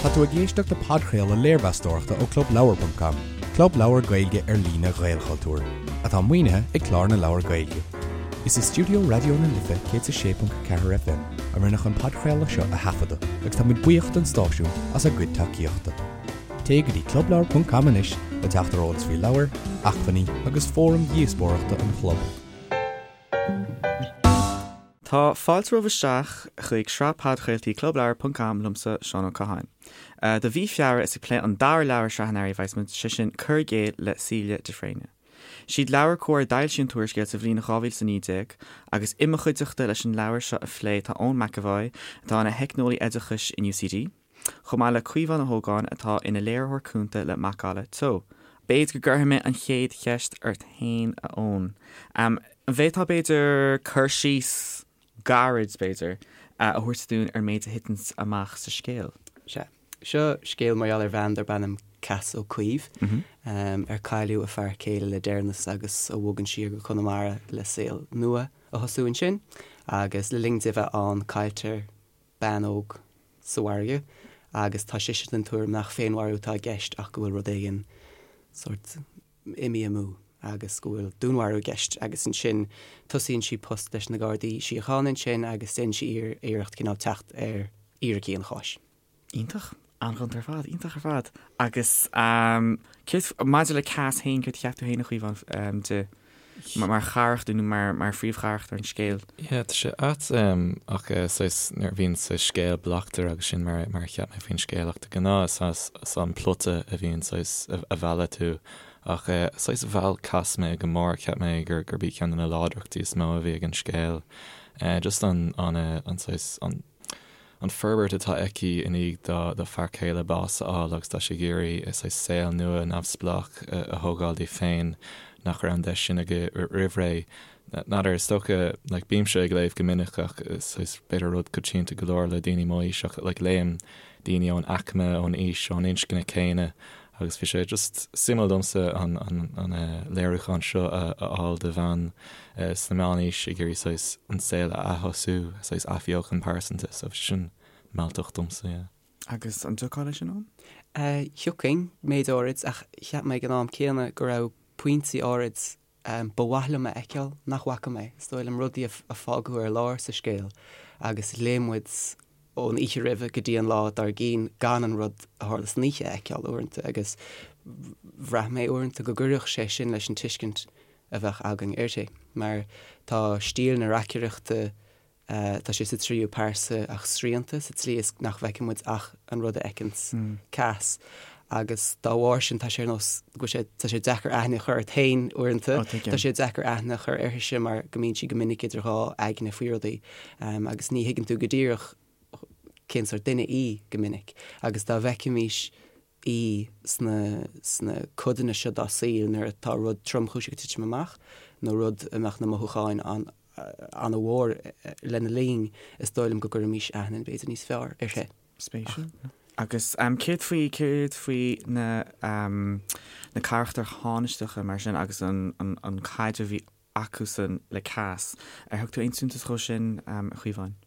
Tá tú ag éisteacht le podchraoladh léirmheastóireachta ó ClubLeabhar.com, club leabhar Gaeilge ar líne Ghaelchultúir, atá maoinithe ag Clár na Leabhar Gaeilge. Is i stiúideo Raidió na Life 106.4 FM a rinneadh an podchraoladh seo a thaifeadadh agus tá muid buíoch don stáisiún as a gcuid tacaíochta. Téigh go dtí clubleabhar.com anois le teacht ar eolas faoi leabhair, acmhainní agus fóraim dhíospóireachta an chlub. Tá fáilte romhaibh isteach chuig sraith podchraoltaí Club Leabhar ponc com liomsa, Seán Ó Catháin. Do mhí Feabhra is ag plé an dara leabhar i sraith an Earraigh a bheas muid, sé sin Cur i gCéill le Celia de Fréine. Siad LeabhairCOMHAR a d'fhoilsigh an t-úrscéal sa bhliain 2019 agus i mo chuideachta leis an leabhar seo a phlé tá Eoin McEvoy, atá ina theicneolaí oideachais in UCD, chomh maith le Caomhán Ó hÓgáin atá ina léiritheoir cúnta le Macalla Teo. B'fhéidir go gcuirfidh mé an chéad cheist ort féin, a Eoin. An bhféadfá, b'fhéidir, cur síos gairid, b'fhéidir, a thabhairt dúinn ar an méid a thiteanns amach sa scéal? Sea. Seo scéal mar gheall ar bhean darb ainm Cass Ó Caoimh, ar cailleadh a fear céile le deireanas agus a bhogann siar go Conamara le saol nua a thosú ansin. Agus le linn di bheith ann cailltear bean óg sa bhfarraige agus tá sise den tuairim nach féinmharú atá i gceist ach go bhfuil rud éigin sórt imithe amú agus go bhfuil dúnmharú i gceist agus ansin tosaíonn sí post leis na Gardaí Síochána ansin agus déanann sí iarracht cineál teacht ar fhíricí an cháis. Iontach. An-ghonta ar fad. Iontach ar fad. Agus céard, maidir le Cass féin, céard a cheap tú féin, a Chaomháin, di mar charachtar nó mar mar phríomhcharachtar an scéil? Yeah, tá sé ait ach saghas nuair a bhíonn saghas scéal bleachtaire agus sin mar mar a cheap mé faoin scéal ach de ghnáth is is an plota a bhíonn saghas a mhealladh tú ach saghas mheall Cass mé go mór, cheap mé gur gurb í ceann de na láidreachtaí is mó a bhí ag an scéal. Just an an an saghas an an forbairt atá aici i ndiaidh dá dá fear céile bás a fháil agus tá sí ag iarraidh saghas saol nua neamhspleách a thógáil di féin nach raibh an deis sin aici roimh ré. N'fheadar, is dócha, like bímse ag léamh go minic ach saghas b'fhéidir rud coitianta go leor le daoine mo aois ach like léim daoine ón aicme, ón aois, ón inscne céanna Agus bhí sé just suimiúil domsa an an léiriúchán seo a fháil de bhean sna meánaois ag iarraidh saghas an saol a aththosú, saghas athbheochan pearsanta, so bhí sé sin mealltach domsa, yeah. Agus an dtiocfá leis sin, Eoin? Thiocfainn, méid áirid, ach cheap mé ag an am céanna go raibh pointí áirid ba mhaith liom a fheiceáil nach bhfaca mé. Is dóigh liom rudaí a fágadh ar lár sa scéal agus léigh muid ón oíche roimhe go dtí an lá dár gcionn gan an rud a tharla san oíche a fheiceáil uaireanta agus bhraith mé uaireanta go gcuirfeadh sé sin leis an tuiscint a bheadh againn uirthi mar tá stíl na reacaireachta Tá sé sa tríú pearsa ach srianta sa tslí is nach bhfeiceann muid ach an rud a fheiceanns Cass. Agus dá bharr sin tá sé ar nós go bhfuil sé, tá sé deacair aithne a chur ort féin uaireanta. Tá sé deacair aithne a chur uirthise mar go mbíonn sí go minic idir dhá aigne faoi rudaí agus ní thuigeann tú go díreach cén sórt duine í go minic. Agus dá bhfeicfimís í sna sna codanna seo dá saol nuair atá rud tromchúiseach ag titim amach nó rud a mbeadh na mothúcháin an an-mhór lena linn, is dóigh liom go gcuirfimís aithne b'fhéidir níos fearr uirthi. Spéisiúil. Agus céard faoi, céard faoi na na carachtair thánaisteacha mar sin agus an an caidreamh a bhí acusan le Cass? Ar thug tú aon suntas dhó sin, a Chaomháin?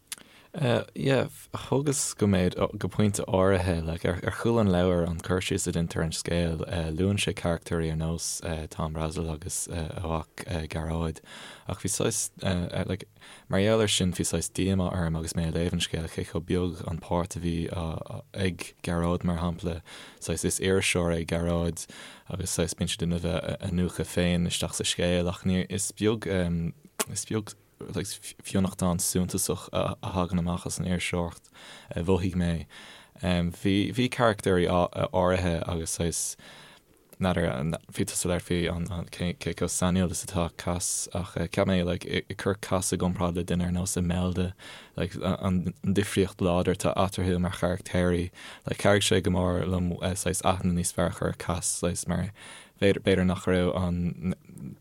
Yeah, thugas go méid, go pointe áirithe, like ar ar chúl an leabhair, an cur síos a deintear ar an scéal, luann sé carachtóirí ar nós Tom Brassil agus a mhac Gearóid, ach bhí saghas, like, mar gheall air sin bhí saghas díomá orm agus mé ag léamh an scéil cé chomh beag an páirt a bhí ag Gearóid mar shampla, saghas is iriseoir é Gearóid agus saghas bíonn sé ag déanamh a iniúchadh féin isteach sa scéal ach ní, is beag, is beag. fionnachtán suntasach a thagann amach as an iriseoireacht, a mhothaigh mé. Bhí, bhí carachtóirí áirithe agus saghas, n'fheadar, bhí tusa ag labhairt faoi an, cé, cé chomh sainiúil is atá Cass ach cheap mé like ag cur Cass i gcomparáid le duine ar nós Imelda, like an difríocht láidir atá eatarthu mar charachtóirí, like chabhraigh sé go mór liom saghas aithne níos fearr a chur ar Cass saghas mar B'fhéidir nach raibh an,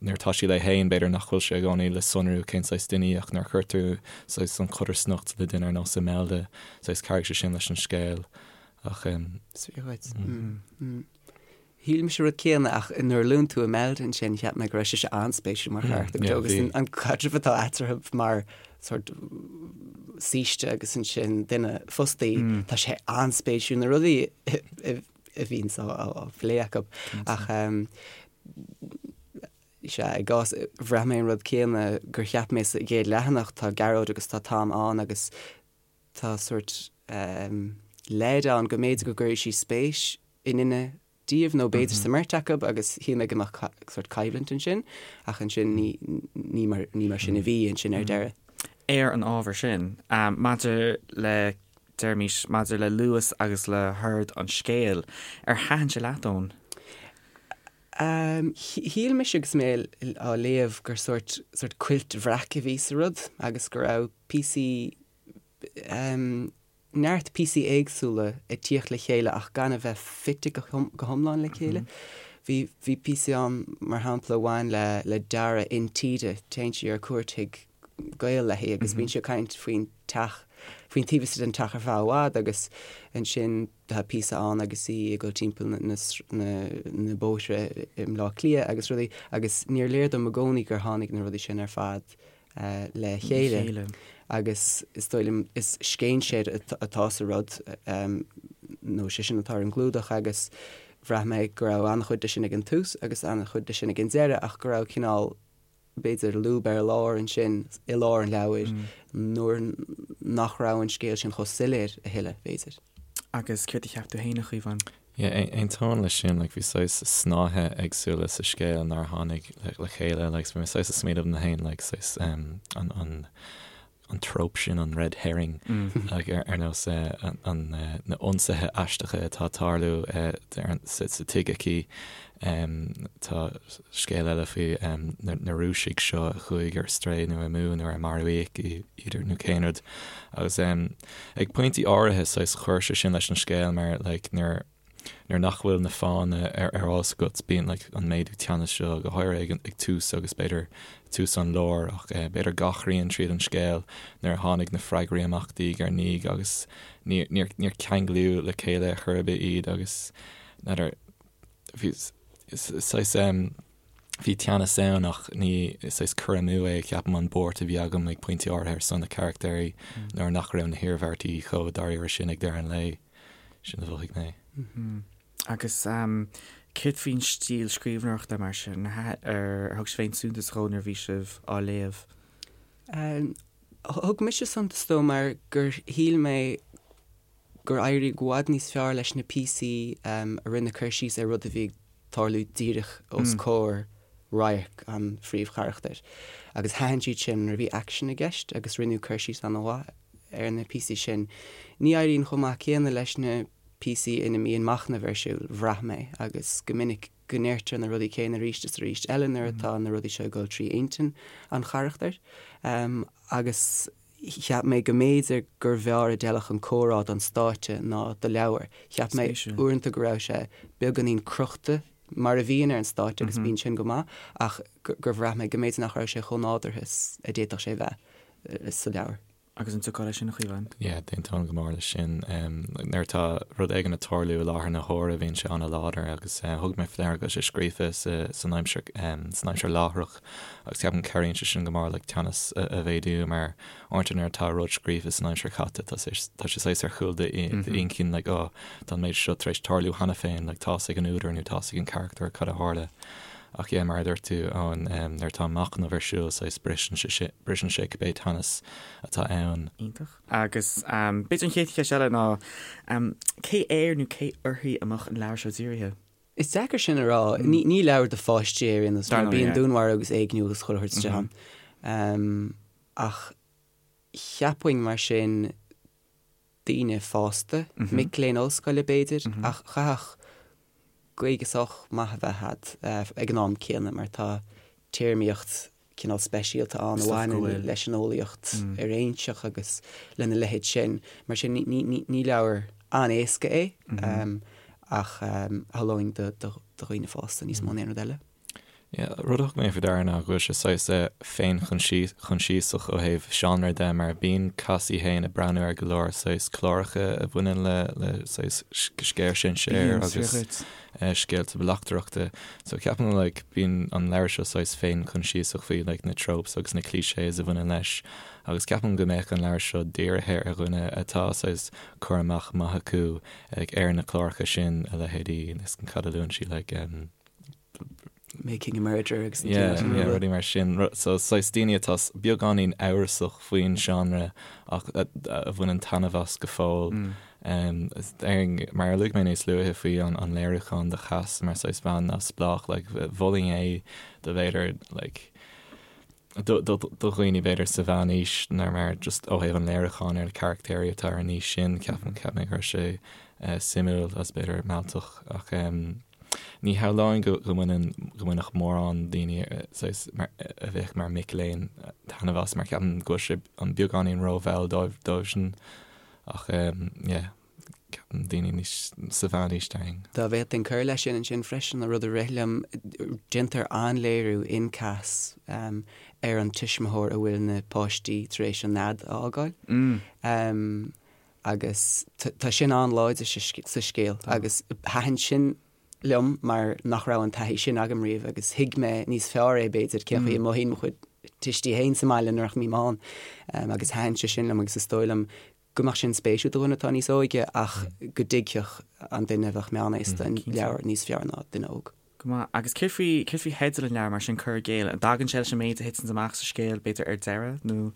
nuair atá sí léi féin, b'fhéidir nach bhfuil sé i gcónaí le sonrú cén saghas duine í ach nuair a chuir tú saghas an chodarsnacht le duine ar nós Imelda, saghas chabhraigh sé sin leis an scéal ach. Is fíor dhuit. Shíl mise an rud céanna ach nuair a luann tú Imelda ansin cheap mé go raibh sise an-spéisiúil mar charachtar agus an caidreamh atá eatarthu mar sort. saoiste agus ansin duine fostaí, tá sé an-spéisiúil na rudaí a bhíonns á phlé acu. Ach sea, i gcás, bhraith mé an rud céanna gur cheap mé sa gcéad leathanach, tá Gearóid agus tá Tom ann agus tá sórt leid ann go mb'fhéidir go gcuirfidh sí spéis i nduine díobh nó b'fhéidir sa mbeirt acu agus shíl mé go mbeadh sórt coimhlint ansin ach ansin ní ní mar ní mar sin a bhí ansin ar deireadh. Ar an ábhar sin, maidir le, deirimis, maidir le luas agus le hord an scéil, ar thaitin sé leat, Eoin? Shíl mise agus mé á léamh gur sórt sórt cuilt bhreac a bhí sa rud agus go raibh píosaí neart píosaí éagsúla ag tíocht le chéile ach gan a bheith fite go hiomlán le chéile. Bhí, bhí píosaí ann, mar shampla, a bhain le, le dearadh intíre. Téann sí ar cuairt chuig gaol léi agus bíonn sí ag caint faoin teach, faoin taobh istigh den teach ar feadh i bhfad agus ansin tá píosa ann agus í ag dul timpeall na, na, na, na bóithre i mBleá Cliath agus rudaí agus níor léir dom i gcónaí gur tháinig na rudaí sin ar fad le chéile agus is dóigh liom is scéinséir atá sa rud nó sé sin atá ar an gclúdach agus bhraith mé go raibh an-chuid de sin ag an tús agus an-chuid de sin ag an deireadh ach go raibh cineál b'fhéidir lúb ar lár ansin i lár an leabhair nuair nach raibh an scéal sin chomh soiléir a thuilleadh, b'fhéidir. Agus céard a cheap tú féin, a Chaomháin? Yeah, aontaím leis sin, like bhí saghas snáithe éagsúla sa scéal nár tháinig le chéile, like so bhí mé saghas ag smaoineamh liom féin, like saghas um, an, an, an trope sin, an red herring, like ar, ar nós eh, an, an, eh, na ionsaithe aisteacha atá ag tarlú eh, ar an, sa, sa tigh aici. Um, tá scéal eile faoi um, na, na Rúisigh seo a chuaigh ar strae nó amú nó ar maraíodh iad nó cén rud. Agus um, ag pointí áirithe saghas chuir sé sin leis an scéal mar like nuair nuair nach bhfuil na fáthanna ar ar eolas agat bíonn like an méadú teannas seo go háirithe ag ag tús agus b'fhéidir tús an lár ach eh, b'fhéidir gach rian tríd an scéal nuair a tháinig na freagraí amach diaidh ar ndiaidh agus níor níor níor ceanglaíodh le chéile ar chor ar bith iad agus n'fheadar bhí saghas em Bhí teannas ann ach ní saghas cur amú é, ceapaim, an buairt a bhí agam ag pointí áirithe ar son na carachtéirí nuair nach raibh na hiarmhairtí chomh dáiríre sin ag deireadh an lae. Sin a mhothaigh mé. Agus céard faoin stíl scríbhneoireachta mar sin? Ar thug sibh aon suntas dhó nuair a bhí sibh á léamh? Thug mise suntas dó mar gur shíl mé gur éirigh i bhfad níos fearr leis na píosaí a rinne cur síos ar rud a bhí ag tarlú díreach os comhair radharc an phríomhcharachtair. Agus thaitin siad sin nuair a bhí aicsean i gceist agus rinneadh cur síos an-mhaith ar na píosaí sin. Ní éiríonn chomh maith céanna leis na píosaí ina mbíonn machnamh ar siúl, bhraith mé, agus go minic go ndeirtear na rudaí céanna arís is arís eile nuair atá na rudaí seo ag dul trí intinn an charachtair. Agus. Cheap mé go mb'fhéidir gur bhfearr a d'fheilfeadh an comhrá don stáitse ná do leabhar. Cheap mé uaireanta go raibh sé beagáinín crochta mar a bhíonn ar an stáitse agus bíonn sin go maith ach gur bhraith mé go mb'fhéidir nach raibh sé chomh nádúrtha is a d'fhéadfadh sé bheith sa leabhar. Agus an dtiocfá leis sin, a Chaomháin? Yeah, d'aontóinn go mór leis sin. Nuair atá rud éigin ag tarlú i láthair na huaire bíonn sé an-láidir agus thug mé faoi deara go bhfuil sé scríofa san aimsir san aimsir láithreach Agus ceapaim cabhraíonn sé sin go mór like teannas a mhéadú mar uaireanta nuair atá rud scríofa san aimsir chaite tá sé tá sé saghas ar chúl d'inchinn like oh tá an méid seo tar éis tarlú cheana féin like tá's ag an údar nó tá's ag an charachtar cad a tharla. Ach yeah mar a dúirt tú Eoin um, nuair atá machnamh ar siúl saghas briseann sé briseann sé cibé teannas atá ann. Iontach. Agus um, b'fhéidir an chéad cheist eile ná um, cé air nó cé uirthi a mbeadh an leabhar seo dírithe? Is deacair sin a rá. Ní leabhar do pháistí é ar aon nós, mar bíonn dúnmharú agus éigniú agus chuile shórt istigh ann. Ach cheapfainn mar sin daoine fásta, mic léinn ollscoile b'fhéidir, ach chaithfeadh Gaeilge sách maith a bheith agat ag an am céanna mar tá téarmaíocht cineál speisialta ann a bhaineann leis an eolaíocht fhoiréinseach agus lena leithéid sin. Mar sin, ní leabhar an-éasca é ach shamhlóinn do dhaoine fásta níos mó ná aon rud eile. Yeah, rud a thug mé faoi deara ná go bhfuil sé saghas féinchoinsiasach ó thaobh seánra de mar bíonn Cassie féin ag breathnú ar go leor saghas cláracha a bhaineann le le saghas scéal sinsear agus scéalta bleachtaireachta. So ceapaim like bíonn an leabhar seo saghas féinchoinsiasach faoi like na tropes agus na clichés a bhaineann leis. Agus ceapaim go mbeadh an leabhar seo dírithe ar dhuine atá saghas cur amach maith acu like ar na cláracha sin, a leithéidí, is cad a luann sí like um, Making a Murderer agus na Yeah, cinn yeah, rudaí mar sin. So saghas daoine atá beagáinín amhrasach faoin seánra ach a bhaineann taitneamh as go fóill. Déarfainn, mar a luaigh mé níos luaithe faoi an léiriúchán de Chas mar saghas bhean neamhspleách, like mholfainn é do b'fhéidir like do dhaoine b'fhéidir sa mheánaois nó mar just ó thaobh an léiriúcháin ar na carachtéirí atá ar an aois sin, ceapaim, cheap mé go raibh sé suimiúil agus b'fhéidir mealltach ach ní shamhlóinn go mbaineann, go mbainfeadh mórán daoine saghas mar, a bheadh mar mic léinn taitneamh as mar ceapaim go bhfuil sé an beagáinín rómhall dóibh, dóibhsean ach yeah. Ceapaim daoine níos sa mheánaois déarfainn. Dá bhféadfainn cur leis sin ansin freisin, an rud a rith liom, déantar an-léiriú in Cas ar an tuismitheoir a bhfuil na páistí tar éis an nead a fhágáil. Agus tá sin an-láidir sa scéal agus thaitin sin liom mar nach raibh an taithí sin agam riamh agus thuig mé níos fearr é b'fhéidir cén chaoi a mothaíonn mo chuid tuistí féin sa mbaile nuair nach mbím ann agus thaitin sé sin liom agus is dóigh liom go mbeadh sin spéisiúil do dhuine atá níos óige ach go dtuigfeadh an duine a bheadh meánaosta an leabhar níos fearr ná duine óg. Go maith. Agus céard faoi, céard faoi theideal an leabhair mar sin, Cur i gCéill? An dtagann sé leis an méid a thiteanns amach sa scéal, b'fhéidir ar deireadh, nó?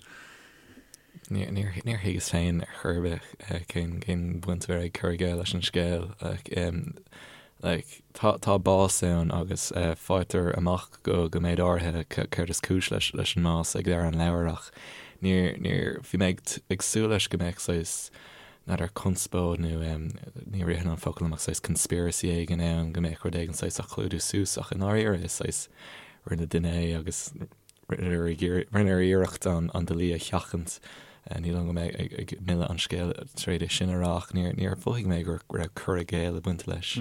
Níor, níor, níor thuigeas féin ar chor ar bith cén, cén bhaint a bheadh ag cur i gcéill leis an scéal. Like, like, tá, tá bás ann agus faightear amach go, go méid áirithe céard is cúis leis, leis an mbás ag deireadh an leabhair ach níor, níor, bhí mé ag, ag súil leis go mbeadh saghas, n'fheadar conspóid nó ní ritheann an focal liom ach saghas conspiracy éigin ann, go mbeadh rud éigin saghas á chlúdú suas ach i ndáiríre is saghas rinne duine é agus Rinneadh iarracht an dlí a sheachaint. Ní dóigh liom go mbeidh ag milleadh an scéil tar éis é sin a rá ach níor mhothaigh mé go raibh cur i gcéill ag baint leis.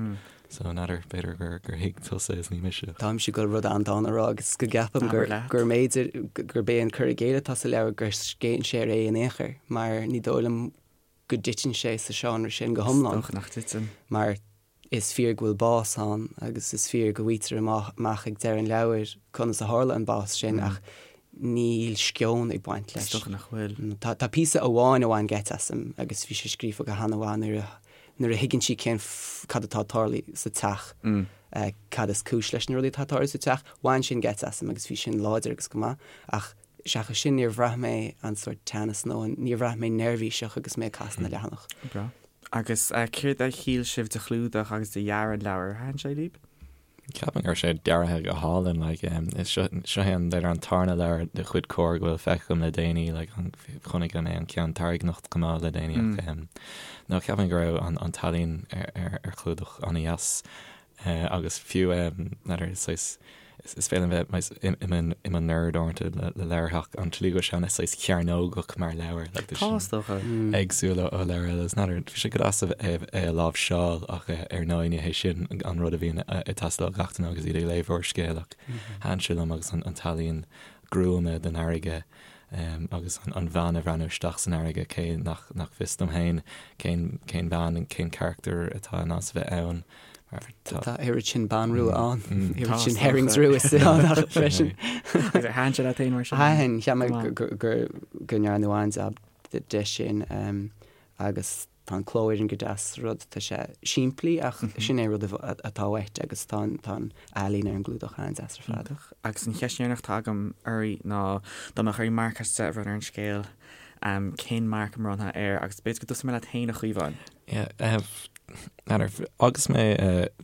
So n'fheadar, b'fhéidir gur thuig tusa is ní mise. Táimse ag dul rud an-dána a rá agus go gceapaim gur mb'fhéidir gurb é an cur i gcéill atá sa leabhar gur scéinséir é in aon chor mar ní dóigh liom go dtiteann sé sa seánra sin go hiomlán. Is dócha nach dtiteann. Mar is fíor go bhfuil bás ann agus is fíor go bhfaightear amach ag deireadh an leabhair conas a tharla an bás sin ach níl sceon ag baint leis. Is dócha nach bhfuil. Tá píosa amháin a bhain geit asam agus bhí sé scríofa go han-mhaith nuair a nuair a thuigeann sí cén cad atá ag tarlú sa teach, cad is cúis leis na rudaí atá ag tarlú sa teach. Bhain sin geit asam agus bhí sin láidir agus go maith ach Seachas sin, níor bhraith mé an sórt teannas nó an, níor bhraith mé neirbhíseach agus mé ag casadh na leathanach. Breá. Agus céard a shíl sibh de chlúdach agus de dhearadh an leabhair? Ar thaitin sé libh? Ceapaim go raibh sé deartha go hálainn, like, is seo, seo é an, b'fhéidir an tarna leabhar de chuid Comhar go bhfuil feicthe agam le déanaí, like, an, chonaic mé an ceann Tarraigneacht chomh maith le déanaí ach, em, no, ceapaim go raibh an, an t-ealaín ar, ar, ar chlúdach an-dheas. Agus fiú n'fheadar, saghas, is féidir liom bheith i mo nerd uaireanta le leabhair ach an tslí go bhfuil sé ana saghas cearnógach mar leabhar, like tá Tá, is dócha. éagsúil ó leabhair eile. Is n'fheadar, bhí sé go deas é a láimhseáil ach ar ndóigh ní hé sin an rud a bhíonn ag teastáil ó gach duine agus iad ag léamh úrscéal ach thaitin sé liom agus an t-ealaín gruama den fharraige agus an bhean ag breathnú isteach san fharraige, cé nach fios dom féin cén cén bhean, cén carachtar atá in ann a bheith ann. Tá oiread sin ban rua ann, oiread sin herrings rua ann ach freisin. Agus ar thaitin sé leat féin mar sin? Thaitin, cheap mé go ndearnadh an-jab de sin agus tá an cló ar an go deas rud, tá sé simplí ach sin é rud atá uait agus tá an ealaín ar an gclúdach an-deas ar fad. Iontach. Agus an cheist dheireanach atá agam oraibh ná dá mbeadh oraibh marc as 10 a bhronnadh ar an scéal, cén marc a mbronnfá air? Agus b'fhéidir go dtosóidh mé leat féin a Chaomháin. Yeah, n'fheadar, agus mé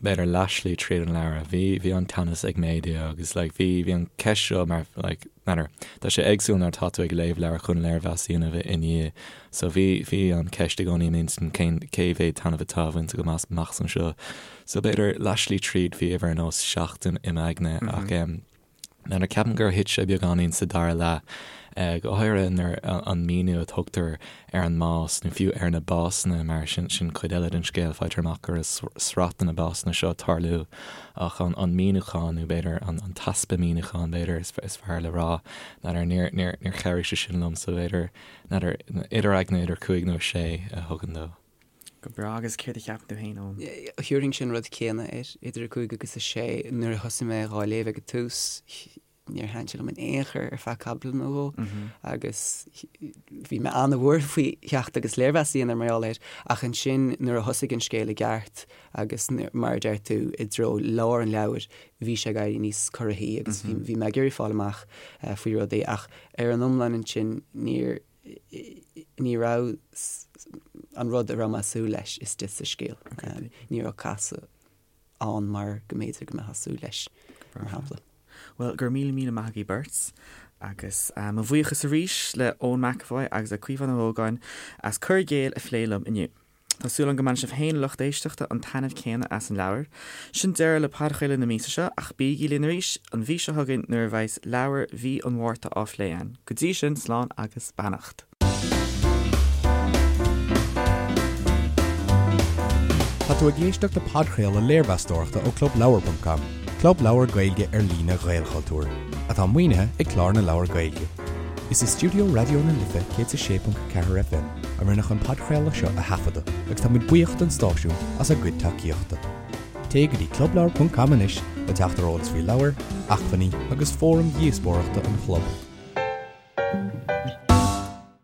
b'fhéidir leathshlí tríd an leabhar, bhí, bhí an teannas ag méadú agus like bhí, bhí an ceist seo mar like n'fheadar, tá sé éagsúil nuair atá tú ag léamh leabhar chun léirmheas a dhéanamh i ndiaidh. So bhí, bhí an ceist i gcónaí i m'intinn cén, cé mhéad taitneamh atá bainte agam as amach anseo. So b'fhéidir leathshlí tríd bhí uimhir ar nós 7 i m'aigne ach em, N'fheadar, ceapaim gur thit sé beagáinín sa dara leath, go háirithe nuair an míniú a tugtar ar an mbás, nó fiú ar na básanna, mar sin sin cuid eile den scéal, faightear amach go raibh sraith de na básanna seo ag tarlú, ach an an míniúchán, nó b'fhéidir an an t-easpa míniúcháin, b'fhéidir, is is fearr le rá, n'fheadar, níor níor níor chabhraigh sé sin liom, so b'fhéidir, n'fheadar, idir aigne idir cúig nó a sé a thugann dó. Go breá, agus céard a cheapann tú féin, Eoin? Thabharfainn an rud céanna air, idir 5 agus 6. Nuair a thosaigh mé dhá léamh ag an tús, Níor thaitin sé liom in aon chor ar feadh caibidil nó dhó agus bhí mé an-bhuartha faoi theacht agus léirmheas a dhéanamh mar gheall air ach ansin nuair a thosaigh an scéal i gceart agus mar a deir tú i dtreo lár an leabhair bhí sé ag éirí níos corraithí agus bhí mé ag iarraidh fáil amach faoi rudaí ach ar an iomlán ansin níor ní raibh an rud a raibh mé ag súil leis istigh sa scéal. Ní raibh casadh ann mar go mb'fhéidir go mbeifeá ag súil leis, mar shampla. Bhuel, go raibh míle míle maith agaibh beirt, agus mo bhuíochas arís le Eoin McEvoy agus le Caomhán Ó hÓgáin as Cur i gCéill a phlé liom inniu. Tá súil agam go mbainfidh sibh féin, a lucht éisteachta, an taitneamh céanna as an leabhar. Sin deireadh le podchraoladh na míosa seo, ach bígí linn arís an mhí seo chugainn nuair a bheas leabhar mhí an Mhárta á phlé againn. Go dtí sin, slán agus beannacht. Tá tú ag éisteacht le podchraoladh léirmheastóireachta ó ClubLeabhar.com, club leabhar Gaeilge ar líne Ghaelchultúir, atá maoinithe ag Clár na Leabhar Gaeilge. Is i stiúideo Raidió na Life 106.4 FM a rinneadh an podchraoladh seo a thaifeadadh agus tá muid buíoch don stáisiún as a gcuid tacaíochta. Téigh go dtí clubleabhar.com anois le teacht ar eolas faoi leabhair, acmhainní agus fóraim dhíospóireachta an chlub.